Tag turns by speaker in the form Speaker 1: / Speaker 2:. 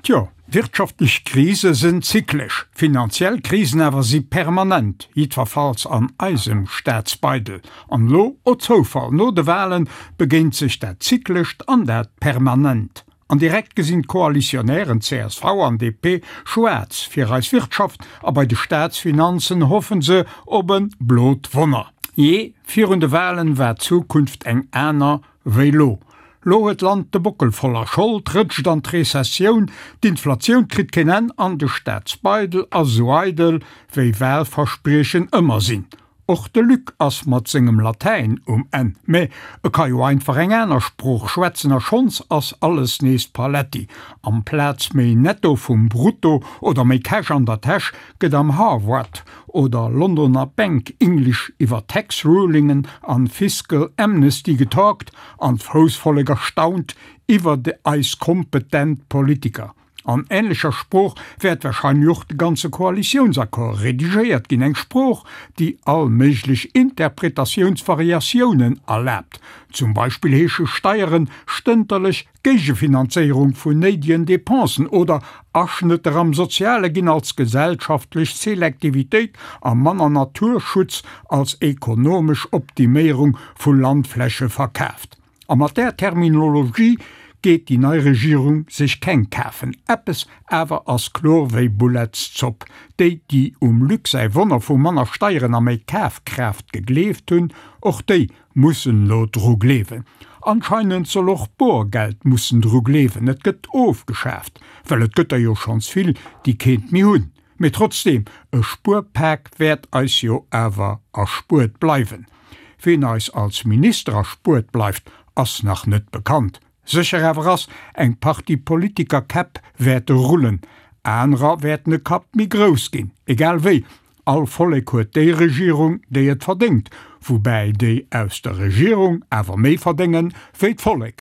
Speaker 1: Tjo, wirtschaftlech Krise sinn zyklesch, finanziell Krisen awer si permanent, jiddwerfalls an eisem Staatsbeidel. An elo, oh Zoufall, no de Wahlen begéint sech dat Zyklescht an dat Permanent. An direkt gesinn d'Koalitionären csv an DP schwaarz fir eis Wirtschaft a bei de Staatsfinanzen hoffen se op e blot Wonner. Jee, virun de Wahlen war d'Zukunft eng aner wéi lo. Lo huet d'Land de Bockel voller Schold, rëtscht an d'Rezessioun, d'Inflatioun kritt keen Enn an de Staatsbeidel ass esou eidel wéi Wahlverspriechen ëmmer sinn. Och de Luc ass mat sengem Latäin um Enn, mä e ka jo einfach eng aner Sprooch schwätzen a schonns ass alles nees Paletti. Amplaz méi Netto vum Brutto oder méi Cash an der Täsch gëtt am Harvard oder Londoner Bank English iwwer Tax Rulingen an Fiscal Amnesty getalkt an d'Foussvollek erstaunt iwwer eis kompetent Politiker. An änlecher Sprooch wäert warscheinlech och de ganze Koalitiounsaccord redigéiert ginn, eng Sprooch, déi all méiglech Interpretatiounsvariatiounen erlaabt. Zum Beispill heesche Steieren stënterlech Géigefinanzéierung vun néidegen Depensen oder Aschnëtter am Soziale ginn als gesellschaftlech Selektivitéit a manner Naturschutz als ekonomesch Optiméierung vu Landfläche verkaaft. A mat där Terminologie geet déi nei Regierung sech keng kafen. Eppes awer ass kloer wéi Bullettszopp, Déi, déi um Luc säi Wonner vu manner Steieren a méi Kafkraaft gegleeft hunn, och déi mussen elo dru gleewen. Anscheinend soll och Boergeld mussen dru gleewen, et gëtt ofgeschaaft, well et gëtt der jo schonns vill, déi keent méi hunn. Mee trotzdem, e Spuerpak wäert eis jo awer erspuert bleiwen. Ween eis als Minister erspuert bleift, ass nach net bekannt. Sécher awer ass, eng Partie Politikerkäpp wäerte rullen, anerer wäerten e Kapp méi grouss ginn. Egal wéi, all Vollek huet déi Regierung, déi et verdéngt, woubäi déi aus der Regierung awer méi verdéngen, wéi d'Vollek.